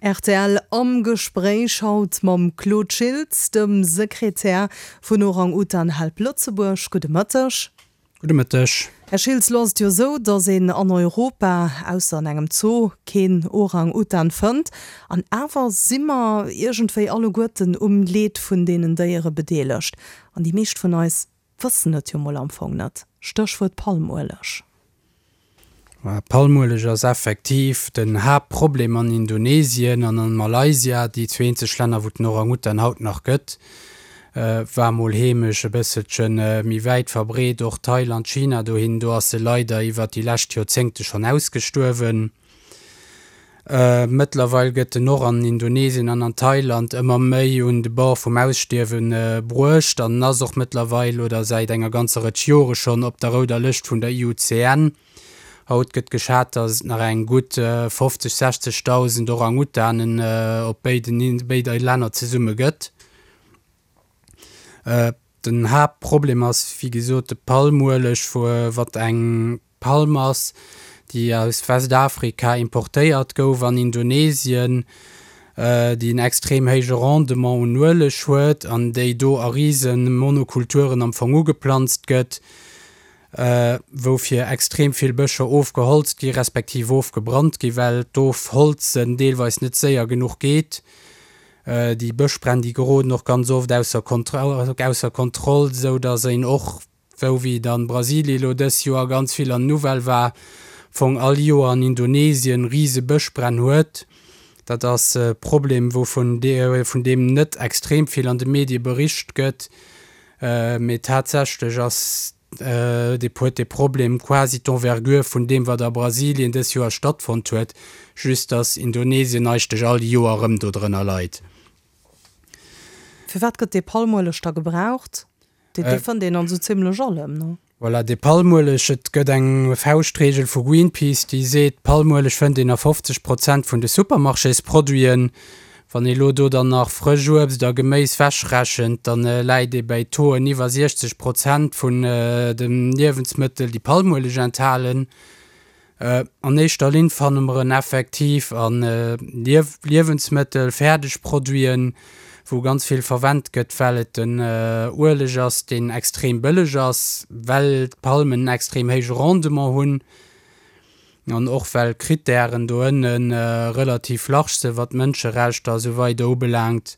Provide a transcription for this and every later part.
Rtl am Gespréich haut mam Claude Schiltz, dem Sekretär vun Orang Utan Help Lëtzebuerg. Gudde Mëtteg. Gudde Mëtteg. Här Schiltz, lo ass et jo esou, datt een an Europa, ausser an engem Zoo, keen Orang Utan fënnt. An awer si mer iergendwéi alleguerten um Leed vun deenen Déiere bedeelegt. An déi meescht vun eis Wëssen et jo mol am Fong net. Stéchwuert Palmueleg. Palmueleg ass effektiv den Haaptproblem an Indonesien an an Malaysia, déi zwee eenzeg Länner wou den Orang-Utan haut nach gëtt. War mol heemesch, e bësselche méi wäit verbreet, och Thailand, China dohin, do ass se leider iwwert déi lescht Joerzéngte schonn ausgestuerwen. Mëttlerweil gëtt en och an Indonesien an an Thailand ëmmer méi un de Bord vum Ausstierwe bruecht an ass och mëttlerweil oder säit enger ganzer Rëtsch Jore schonn op der rouder Lëscht vun der IUCN. Haut gëtt geschat, datt et nach eng gutt 50, 60.000 Orang-Utanen op béiden béide Länner zesumme gëtt. Den Haaptproblem ass wéi gesot de Palmueleg, wat eng Palm ass, déi aus Westafrika importéiert gouf an Indonesien, déi en extrem héije Rendement un Ueleg huet an déi do a rise Monokulturen am Fong ugeplanzt gëtt, woufir extrem vill Bëscher ofgeholzt gi respektiv ofgebrannt gi well d'Ofholzen deelweis net séier genuch geet. Déi Bëschbränn, déi geroden och ganz oft ausser Kontroll, esou datt een och, wou wéi et an Brasilien elo dës Joer ganz vill an den Nouvelle war, Fong all Joer an Indonesien rise Bëschbränn huet. Dat ass e Problem, wou vun vun deem net extrem vill an de Medie bericht gëtt, mee tatsächlech ass dee huet dee Problem quasi d'Envergure vun deem, wat a Brasilien dës Joer stattfonnt huet, just datt Indonesien eigentlech all Joer erëm do drënner leit. Firwat gëtt dee Palmueleg da gebraucht? Dee fënnt een an esou zimlech allem, ne? Voilà, dee Palmueleg, et gëtt eng Fauschtregel vu Greenpeace, déi seet, Palmueleg fënnt een a 50 Prozent vun de Supermarchésproduiten. Wann ee lo do dann nach frësch Uebst a Geméis wechrechent, dann läit ee bäi Tauxen iwwer 60 Prozent vun de Liewensmëttel, déi Palmueleg enthalen. An éischter Linn fanne mer en effektiv a Liewensmëttel, Fäerdegproduiten, wou ganz vill verwent gëtt, well et en Ueleg ass, deen extrem bëlleg ass, well d'Palmen en extrem héije Rendement hunn an och well d'Krittären do ënne relativ large sinn, wat d'Mënscherechter a sou weider ubelaangt.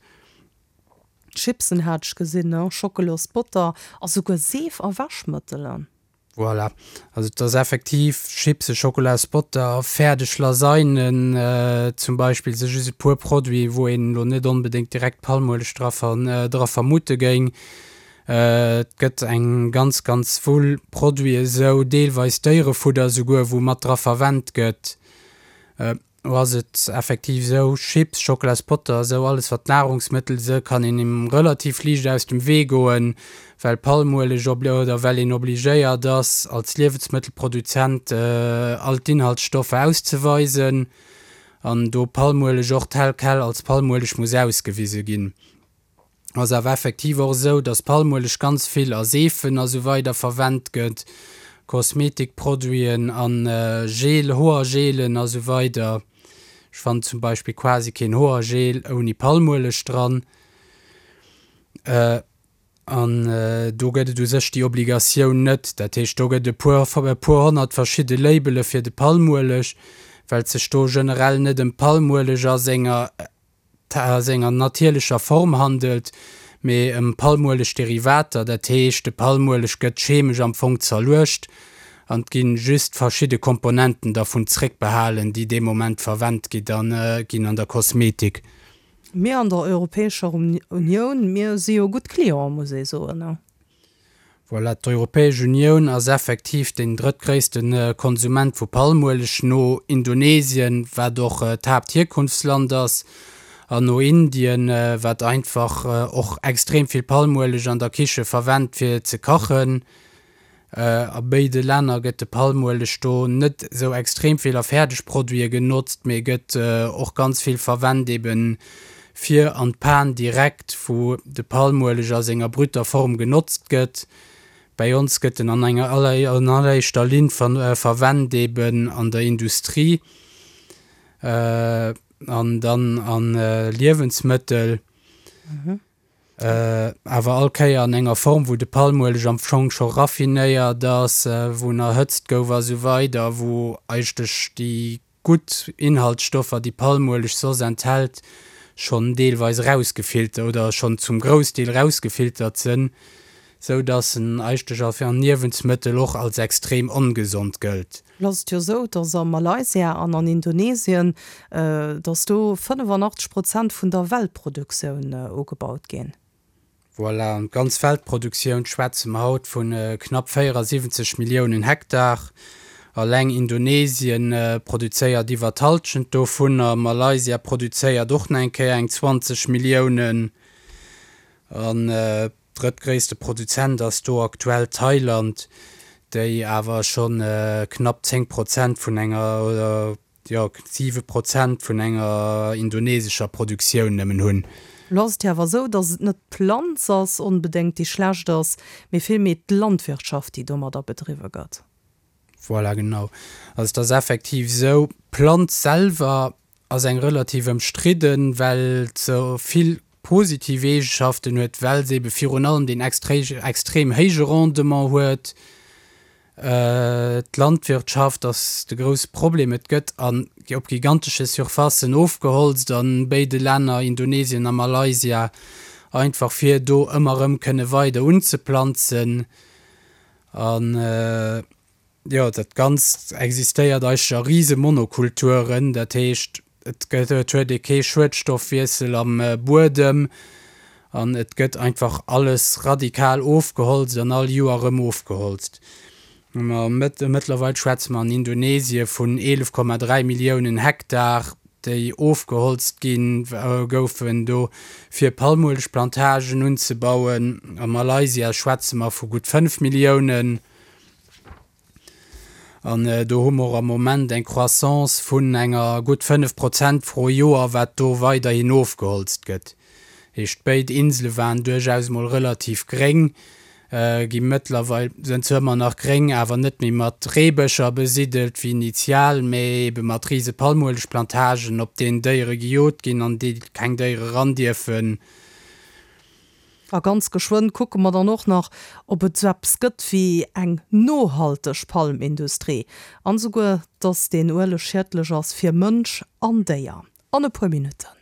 Chipsen hat ech gesinn, Schockelos-Botter a souguer Seef a Wäschmëttelen. Voilà, also et ass effektiv Chipse, Schokolasbotter, fäerdeg Lasagnen zum Beispill si just e puer Produiten, wou een elo net onbedéngt direkt Palmueleg dra dra vermute géing. Et gëtt eng ganz, ganz Wull Produiten esou, deelweis Déierefudder esouguer, wou mat dra verwent gëtt. Do ass et effektiv esou, Chips, Schockelaspodder, esou alles wat Nahrungsmëttel se, kann een em relativ liicht aus dem Wee goen, well Palmueleg oder well een obligéiert ass als Liewensmëttelproduzent all d'Inhaltsstoffer auszeweisen an do Palmueleg och tel quel als Palmueleg muss ausgewise ginn. Ass awer effektiv och esou, dass Palmueleg ganz vill a Seefen a sou weider verwennt gëtt, Kosmetikproduiten an Gel, Hoergelen a sou weider. Ech fannen zum Beispill quasi keen Hoergel ouni Palmueleg dran. An do gëtt et u sech déi Obligatioun net. Dat heescht, do gëtt e puer, e puer honnert verschidde Labele fir de Palmueleg, well et sech do generell net ëm Palmueleg a senger a senger natierlecher Form handelt, mee ëm Palmueleg-Derivater, dat heescht de Palmueleg gëtt chemesch am Fong zerluecht an et ginn just verschidde Komponenten dervun zréckbehalen, déi dee Moment verwent gi ginn an der Kosmetik. Mir an der Europäescher Unioun, mir si jo gutt Clienten, muss ee soen. Voilà, d'Europäesch Unioun ass effektiv deen drëttgréisste Konsument vu Palmueleg no Indonesien, wat och d'Haapthierkunftsland ass, an no Indien, wat einfach och extrem vill Palmueleg an der Kiche verwennt fir ze kachen. A béide Länner gëtt de Palmueleg do net esou extrem vill a Fäerdegproduite genotzt, mee gëtt och ganz vill verwennt eben fir an d'Pan direkt, wou de Palmueleg a senger brüter Form genotzt gëtt. Bäi ons gëtt en an enger an alleréischter Linn verwennt eben an der Industrie. an dann a Liewensmëttel. Awer all Kéier an enger Form, wou de Palmueleg am Fong scho raffinéiert ass, wou en erhëtzt gouf a sou weider, wou eigentlech déi gutt Inhaltsstoffer, déi Palmueleg soss enthält, schonn deelweis erausgefiltert oder schonn zum Groussdeel erausgefiltert sënn, sou dass en eigentlech als Niewensmëttel och als extrem ongesond gëllt. Lo ass et jo esou, dass a Malaysia an an Indonesien, dass do 85 Prozent vun der Weltproduktioun ugebaut ginn. Voilà, an d'ganz Weltproduktioun schwätze mer haut vu knapp 74 Milliounen Hektar. Alleng Indonesien produzéiert iwwer d'Hallschent dovunner, Malaysia produzéiert och nach eng Kéier eng 20 Milliounen. An drëttgréisste Produzent ass do aktuell Thailand, déi awer scho knapp 10 Prozent vun enger, oder jo, 7 Prozent vun enger indonesescher Produktioun nëmmen hunn. Elo ass et jo awer esou, datt et net d'Planz ass onbedéngt, déi schlecht ass, mee villméi d'Landwirtschaft, déi domadder bedriwwe gëtt. Voilà, genau. Also et ass effektiv esou, d'Planz selwer ass eng relativ ëmstridden, well se vill positiv Eegeschaften huet, well se ebe virun allem deen extrem héije Rendement huet. D'Landwirtschaft ass de grousse Problem. Et gëtt an op gigantesche Surfacen ofgeholzt a béide Länner, Indonesien a Malaysia, einfach fir do ëmmer erëm kënne weider unzeplanzen. An jo, dat Ganzt existéiert eigentlech a rise Monokulturen, dat heescht, et gëtt, et huet ee kee Schuedstoffwiessel am Buedem an et gëtt einfach alles radikal ofgeholzt an all Joer erëm ofgeholzt. Ma mëttlerweil schwätze mer an Indonesie vun 11,3 Milliounen Hektar, déi ofgeholzt gi goufen do fir Palmuelegplantagen unzebauen. A Malaysia schwätze mer vu gutt 5 Milliounen. An do hu mer och am Moment eng Croissance vun enger gutt 5 Prozent pro Joer, wat do weiderhin ofgeholzt gëtt. Heescht, béid Insele waren duerchaus mol relativ gréng, gi mëttlerweil, sënn zwar ëmmer nach gréng, awer net méi mat Reebëscher besiddelt wéi initial, mä ebe mat rise Palmuelegplantagen, op deenen Déiere gejot ginn, an déi keng Déiere ran dierfen. A ganz geschwënn kucke mer dann och nach, ob et sou eppes gëtt wéi eng nohalteg Palmindustrie, an esouguer, dass deen Ueleg schiedlech ass fir Mënsch an Déier. An e puer Minutten.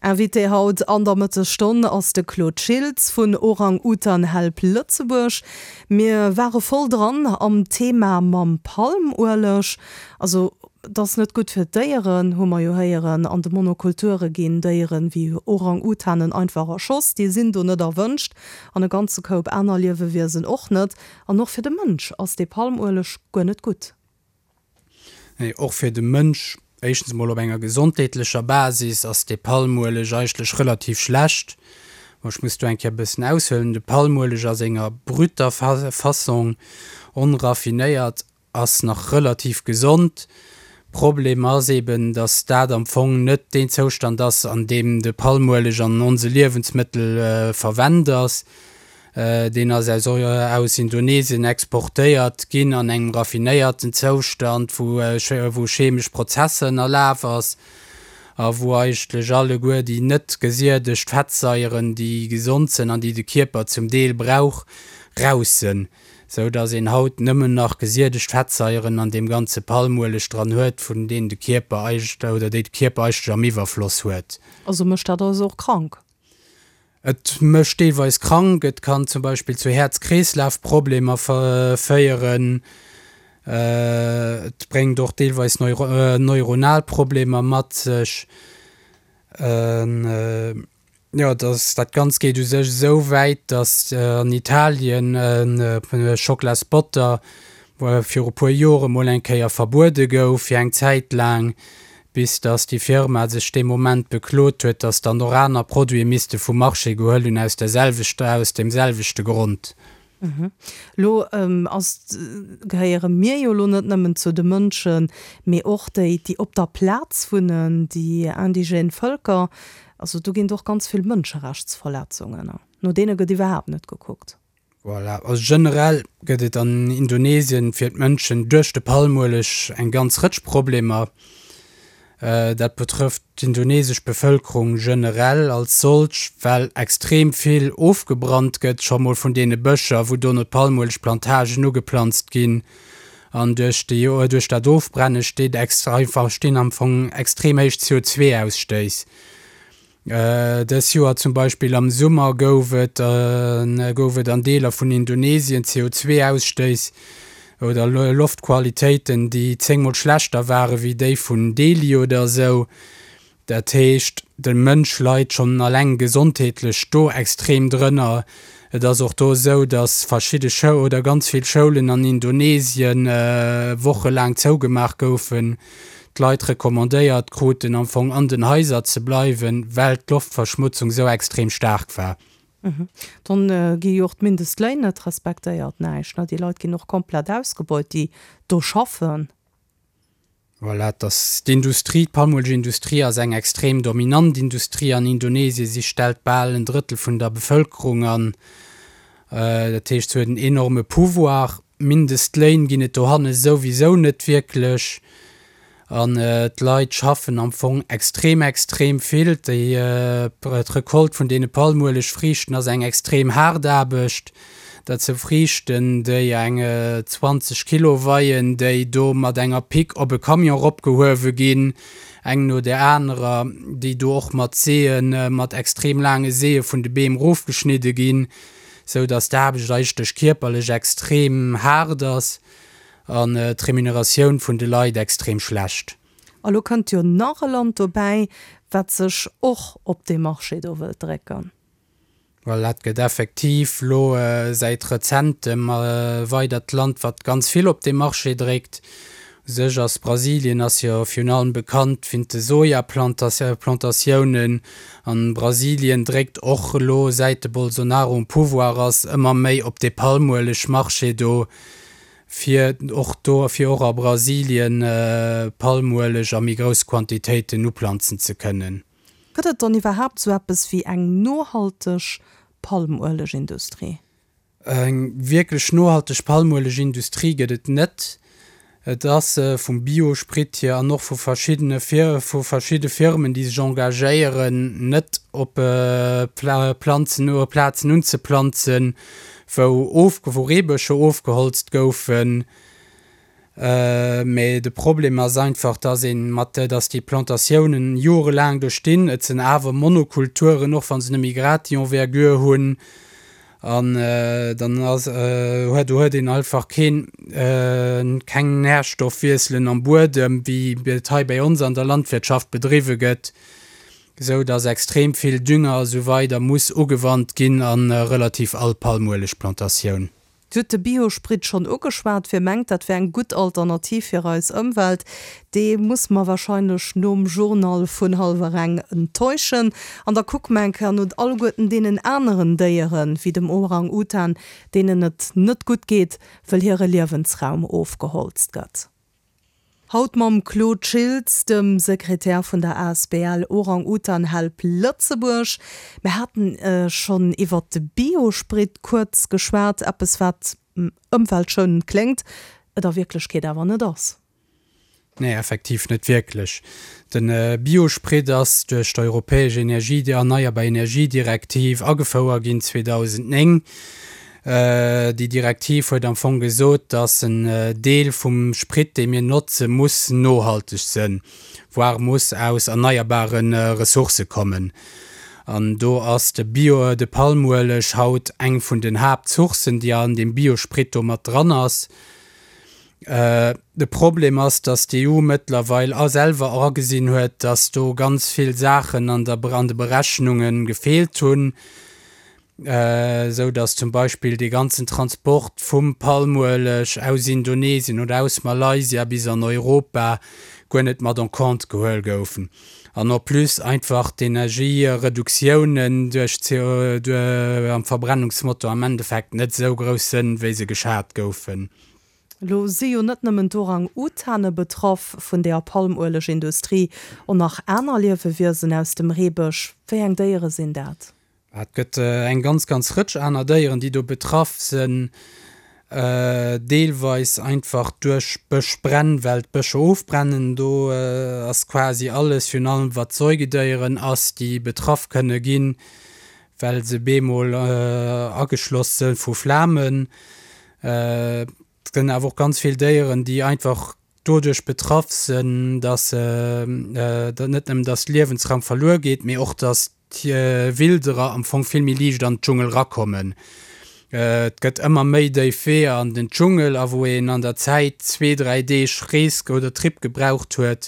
Invité haut an der Mëttesstonn ass de Claude Schiltz vun Orang Utan Help Lëtzebuerg. Mir ware voll dran am Thema mam Palmueleg. Also et ass net gutt fir d'Déieren, hu mer jo héieren. An de Monokulture ginn Déieren wéi Orang-Utanen einfach erschoss, déi sinn do net erwënscht. An e ganze Koup aner Liewewiesen och net. An och fir de Mënsch ass dee Palmueleg guer net gutt. Nee, och fir de Mënsch, éischtens emol op enger gesondheetlecher Basis ass dee Palmueleg eigentlech relativ schlecht. Bon, ech muss do eng Kéier e bëssen aushuelen. De Palmueleg a senger brüter Fassong, onraffinéiert, ass nach relativ gesond. Problem ass eben, dass dat am Fong net deen Zoustand ass, an deem de Palmueleg an onse Liewensmëttel verwennt ass. Deen ass aus aus Indonesien exportéiert ginn an engem raffinéierten Zoustand, wou wou chemesch Prozesser ënnerlaf ass a wou eigentlech alleguer déi net gesiedegt Fettsaieren, déi gesond sënn an déi de Kierper zum Deel brauch, raus sënn, sou datt een haut nëmmen nach gesiedegt Fettsaieren an deem ganze Palmueleg dran huet, vun deenen de Kierper eigentlech oder déi de Kierper eigentlech am Iwwerfloss huet. Also mécht dat eis och krank? Et mécht deelweis krank, et kann zum Beispill zu Häerz-Kreeslaf-Problemer féieren, et bréngt och deelweis neuronal Problemer mat sech. Jo, dat Ganzt geet u sech esou wäit, datt an Italien Schocklasbotter viru puer Jore mol eng Kéier verbuede gouf fir eng Zäit laang, bis datt déi Firma sech dee Moment beklot huet, datt dann och aner Produite misste vum Marché gehuel hunn aus der selwechter, aus deem selwechte Grond. Elo ass, gehéiere mir jo elo net nëmmen zu de Mënschen, mee och déi, déi op der Plaz wunnen, déi indigène Vëlker. Also do ginn et och ganz vill Mënscherechtsverletzungen, no deene gëtt iwwerhaapt net gekuckt. Voilà, also generell gëtt et an Indonesien fir d'Mënschen duerch de Palmueleg eng ganz Rëtsch Problemer. Dat betrëfft d'indonesesch Bevëlkerung generell als solch, well extrem vill ofgebrannt gëtt, scho mol vun deene Bëscher, wou dono d'Palmuelegplantagen ugeplanzt ginn. An duerch déi, duerch dat Ofbrenne steet einfach, stinn am Fong extrem héich CO2-Ausstéiss. Dës Joer zum Beispill am Summer gouf et gouf et an Deeler vun Indonesien CO2-Ausstéiss oder Loftqualitéiten, déi zéngmol schlechter ware wéi déi vun Delhi oder esou. Dat heescht, de Mënsch leit schonn alleng gesondheetlech do extrem drënner. Et ass och do esou, datt verschidde Schou oder ganz vill Schoulen an Indonesien wochelaang zougemaach goufen, d'Leit recommandéiert kruten am Fong an den Haiser ze bleiwen, well d'Loftverschmutzung sou extrem staark war. Dann gi jo och d'Mindestléin net respektéiert, näischt, ne? Déi Leit ginn och komplett ausgebeut, déi do schaffen. Voilà, et ass d'Industrie, d'Palmuelegindustrie ass eng extrem dominant Industrie an Indonesien. Si stellt bal en Drëttel vun der Bevëlkerung an. Dat heescht, se huet en enorme Pouvoir. Mindestléin ginn et dohanne souwisou net wierklech an d'Leit schaffen am Fong extrem, extrem vill. Déi d'Recolte vun deene Palmuelegfriichten ass eng extrem haart Aarbecht. Dat sou Friichten, déi eng 20 Kilo weien, déi do mat enger Pick op e Camion eropgehuewe ginn, eng no där anerer, déi do och mat Seeën, mat extrem laange Seeë vun de Beem erofgeschnidde ginn. sou dass d'Aarbecht eigentlech kierperlech extrem haart ass an d'Remuneratioun vun de Leit extrem schlecht. A lo kënnt jo nach e Land dobäi, wat sech och op dee Marché do wëllt drécken. Voilà, et gëtt effektiv lo säit rezentem e weidert Land, wat ganz vill op dee Marché dréckt. U sech ass Brasilien ass jo virun allem bekannt wint de Sojaplantatiounen an Brasilien dréckt och elo säit de Bolsonaro um Pouvoir ass ëmmer méi op dee Palmueleg-Marché do fir och do fir och a Brasilien Palmueleg a méi grouss Quantitéiten uplanzen ze kënnen. Gëtt et dann iwwerhaapt sou eppes wéi eng nohalteg Palmuelegindustrie? Eng wierklech nohalteg Palmuelegindustrie gëtt et net. Et ass vum Biosprit hier an och vu verschiddene vu verschidde Firmen, déi sech engagéieren, net op Planzen Plazen unzeplanzen, wou of wou Reebëscher ofgeholzt goufen. Mee de Problem ass einfach, dass ee mat, dass déi Plantatiounen jorelaang do stinn. Et sinn awer Monokulturen, och wa se net méi grad déi Envergure hunn. An dann ass, huet, do huet een einfach keen, keng Nährstoffwiesselen am Buedem, wéi et hei bei ons an der Landwirtschaft bedriwwe gëtt, esou dass extrem vill Dünger a sou weider muss ugewannt ginn a relativ all Palmuelegplantatioun. Dir hutt de Biosprit schonn ugeschwat. Wie mengt, dat wär eng gutt Alternativ fir eis Ëmwelt, dee muss mer wahrscheinlech nom Journal vun hallwer eng enttäuschen. An da kucke mer eng Kéier no alleguerten deenen aneren Déieren, wéi dem Orang-Utan, deenen et net gutt geet, wëll hire Liewensraum ofgeholzt gëtt. Haut mam Claude Schiltz, dem Sekretär vun der asbl Orang-Utan Help Lëtzebuerg. Mir haten schonn iwwert de Biosprit kuerz geschwat, eppes wat ëmweltschounend kléngt, et a Wierklechkeet awer net ass. Nee, effektiv net wierklech. De Biosprit ass duerch d'europäesch Energie, erneierbar Energiedirektiv agefouer ginn 2009. Déi Direktiv huet am Fong gesot, dass en Deel vum Sprit, dee mir notzen, muss nohalteg sënn, voire muss aus erneierbare Ressourcë kommen. An do ass de Bio, de Palmueleg haut eng vun den Haaptsourcen, déi an deem Biosprit do mat dran ass. De Problem ass, dass d'EU mëttlerweil a selwer agesinn huet, dass do ganz vill Saachen an der, an de Berechnunge gefeelt hunn. esou dass zum Beispill dee ganzen Transport vum Palmueleg aus Indonesien oder aus Malaysia bis an Europa guer net mat en compte gehuel goufen an en plus einfach d'Energiereduktiounen duerch am Verbrennungsmotor am Endeffekt net esou grouss sënn, wéi se geschat goufen. Elo si jo net nëmmen d'Orang-Utane betraff vun der Palmuelegindustrie, och nach aner Liewewiesen aus dem Reebësch. Wéi eng Déiere sinn dat? Et gëtt eng ganz, ganz Rëtsch aner Déieren, déi do betraff sinn. Deelweis einfach duerch Bëschbränn, well d'Bëscher ofbrennen. Do ass quasi alles, virun allem wat Säugedéieren ass, déi betraff kënne ginn, well se bemol ageschloss sënn vu Flamen. Et gënn awer och ganz vill Déieren, déi einfach doduerch betraff sënn, dass net nëmmen dass Liewensraum verluer geet, mee och dass d'Wilderer am Fong vill méi liicht an d'Dschungel rakommen. Et gëtt ëmmer méi déif Weeër an den Dschungel, a wou een an der Zäit zwee, dräi Deeg Rees oder Trip gebraucht huet,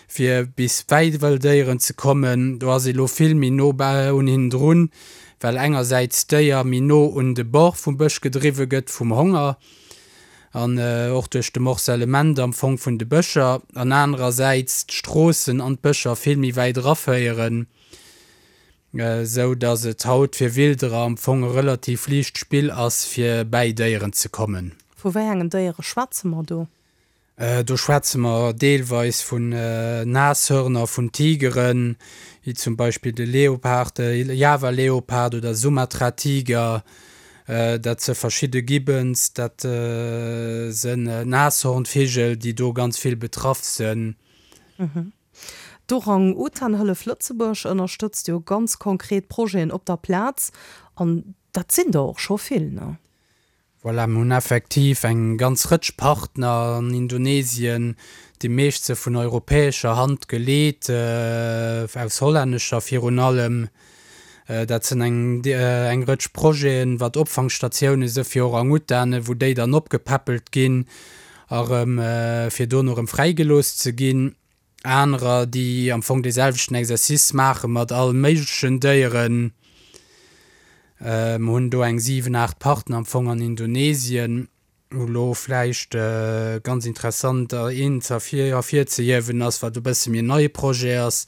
fir bis bäi Wëlldéieren ze kommen, do ass ee lo vill méi no un hinnen drun, well engersäits d'Déier méi no un de Bord vum Bësch gedriwwe gëtt vum Honger an och duerch de Morcellement am Fong vun de Bëscher, an anerersäits d'Stroossen an d'Bëscher vill méi wäit eraféieren. Esou dass et haut fir Wilderer am Fong e relativ liicht Spill ass fir bäi Déieren ze kommen. Vu wéi engen Déiere schwätze mer do? Do schwätze mer deelweis vun Nashörner, vun Tigeren, wéi zum Beispill de Leopard, de Java-Leopard oder Sumatra-Tiger. Dat se verschidde Gibbons, dat sënn Nashornvigel, déi do ganz vill betraff sënn. D'Orang-Utan-Hëllef Lëtzebuerg ënnerstëtzt jo ganz konkret Projeten op der Plaz, an dat sinn der och scho vill, ne? Voilà, mir hunn effektiv eng ganz Rëtsch Partner an Indonesien, déi meescht se vun europäescher Hand geleet, aus hollännescher virun allem. Dat sinn eng eng Rëtsch Projeten, wat Opfangstatioune si fir Orang-Utanen, wou déi dann opgepäppelt ginn a rëm fir dono rëm fräigelooss ze ginn. Anerer, déi am Fong dee selwechten Exercice maache mat all méiglechen Déieren. Mer hunn do eng 7, 8 Partner am Fong an Indonesien. Wou elo vläicht ganz interessant een ze ervirzehiewen ass, wat e bësse méi en neie Projet ass,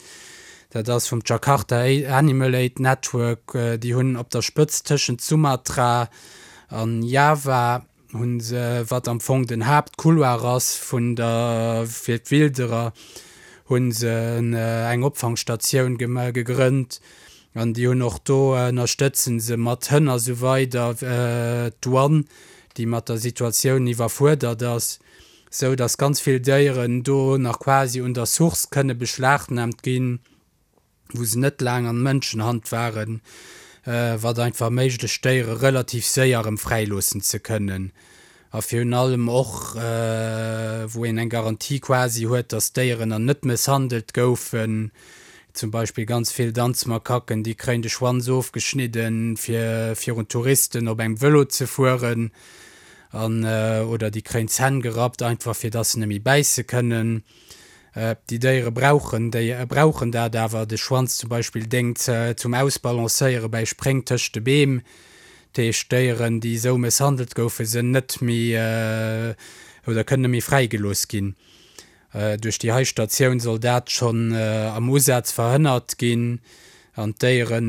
dat ass vum Jakarta Animal Aid Network. Déi hunn op der Spëtzt tëschent Sumatra an Java hu se, wat am Fong den Haaptcouloir ass vun der, fir d'Wilderer, hu se eng Opfangstatioun gegrënnt an déi hunn och do, ënnerstëtze se mat Hënn a sou weider d'Douane, déi mat der Situatioun iwwerfuerdert ass, sou datt ganz vill Déieren do nach quasi un der Source kënne beschlagnahmt ginn. wou se net laang an Mënschenhand waren, wat einfach erméiglecht d'Déiere relativ séier erëm fräiloossen ze kënnen a virun allem och wou een eng Garantie quasi huet, dass d'Déieren dann net mësshandelt goufen. Zum Beispill ganz vill Danzmakaken, déi kréien de Schwanz ofgeschnidden, fir virun Touristen op engem Vëlo ze fueren an oder déi kréien d'Zänn gerappt, einfach fir dass se net méi bäisse kënnen. Déi Déiere brauchen déi brauchen dat awer. De Schwanz zum Beispill déngt zum Ausbalancéiere bäi Spréng tëscht de Beem. Dat heescht, Déieren, déi esou mësshandelt goufen, sënn net méi oder kënnen net méi fräigelooss ginn. Duerch déi hei Statioun soll dat schonn am Usaz verhënnert ginn an d'Déiere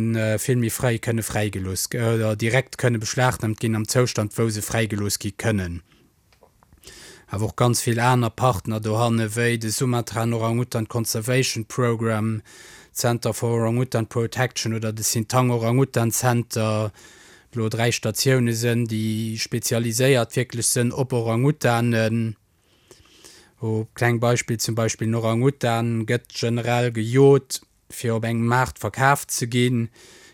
vill méi fréi kënne fräigelooss oder direkt kënne beschlagnahmt ginn am Zoustand, wou se fräigelooss gi kënnen. Awer och ganz vill aner Partner dohanne wéi de Sumatran Orang-Utan Conservation Program, Center for Orang-Utan Protection oder de Sintang Orang-Utan Center, elo 3 Statioune sënn, déi spezialiséiert wierklech sënn op Orang-Utanen. O kleng Beispill, zum Beispill en Orang-Utan gëtt generell gejot fir op engem Maart verkaf ze ginn.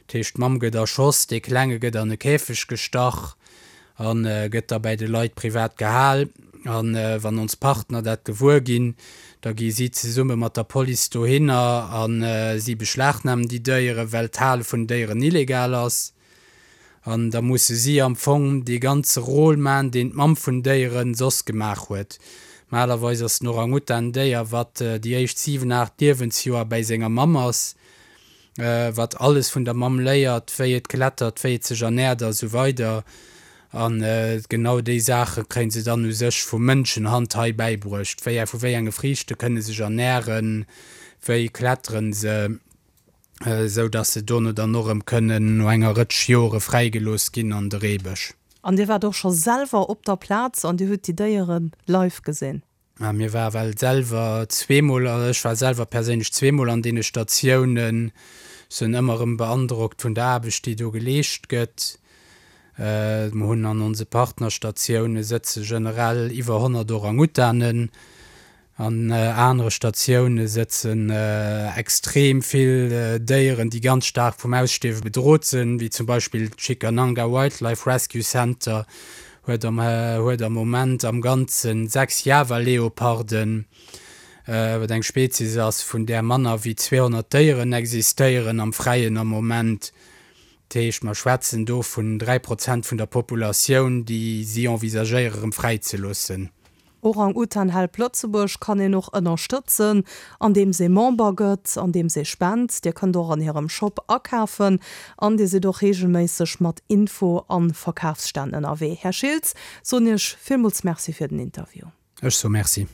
Dat heescht, d'Mamm gëtt erschoss, dee Klenge gëtt an e Käfeg gestach a gëtt da bäi de Leit privat gehal. A wann ons Partner dat gewuer ginn, da gi si zesumme mat der Police dohinner a si beschlagnamen déi Déieren, well d'Hale vun Déieren illegal ass. An da musse si am Fong dee ganze Rôle man, deen d'Mamm vun Déieren soss gemaach huet. Malerweis ass den Orang-Utan en Déier, wat déi éischt 7, 8 Liewensjoer bäi senger Mamm ass, wat alles vun der Mamm léiert, wéi et klettert, wéi et sech ernährt a sou weider. A genau déi Saache kréie se dann u sech vu Mënschenhand hei bäibruecht, wéi, vu wéi enge Friichte kënne sech ernähren, wéi kletteren se. esou dass se dono dann och erëm kënnen no enger Rëtsch Jore fräigelooss ginn an de Reebësch. An Dir waart och scho selwer op der Plaz an Dir hutt déi Déiere live gesinn? Mir ware well selwer zweemol, also ech war selwer perséinlech zweemol an deene Statiounen, sinn ëmmer erëm beandrockt vun der Aarbecht, déi do geleescht gëtt. Mer hunn an onse Partnerstatioune sëtze generell iwwer 100 Orang-Utanen. An anere Statioune sëtzen extrem vill Déieren, déi ganz staark vum Ausstierwe bedrot sinn, wéi zum Beispill d'Cikananga Wildlife Rescue Center huet am huet am Moment am Ganze 6 Java-Leoparden, wat eng Spezies ass, vun där manner wéi 200 Déieren existéieren am Fräien am Moment. Dat heescht, mer schwätzen do vun 3 Prozent vun der Populatioun, déi si envisagéiere rëm fräizeloossen. Orang-Utan Help Lëtzebuerg kann een och ënnerstëtzen, andeems ee Member gëtt, andeems ee spent. Dir kënnt och an hirem Shop akafen an dir sidd och reegelméisseg mat Info a Verkafsstänn ënnerwee. Här Schiltz, soen Iech villmools Merci fir den Interview. Ech soe Merci.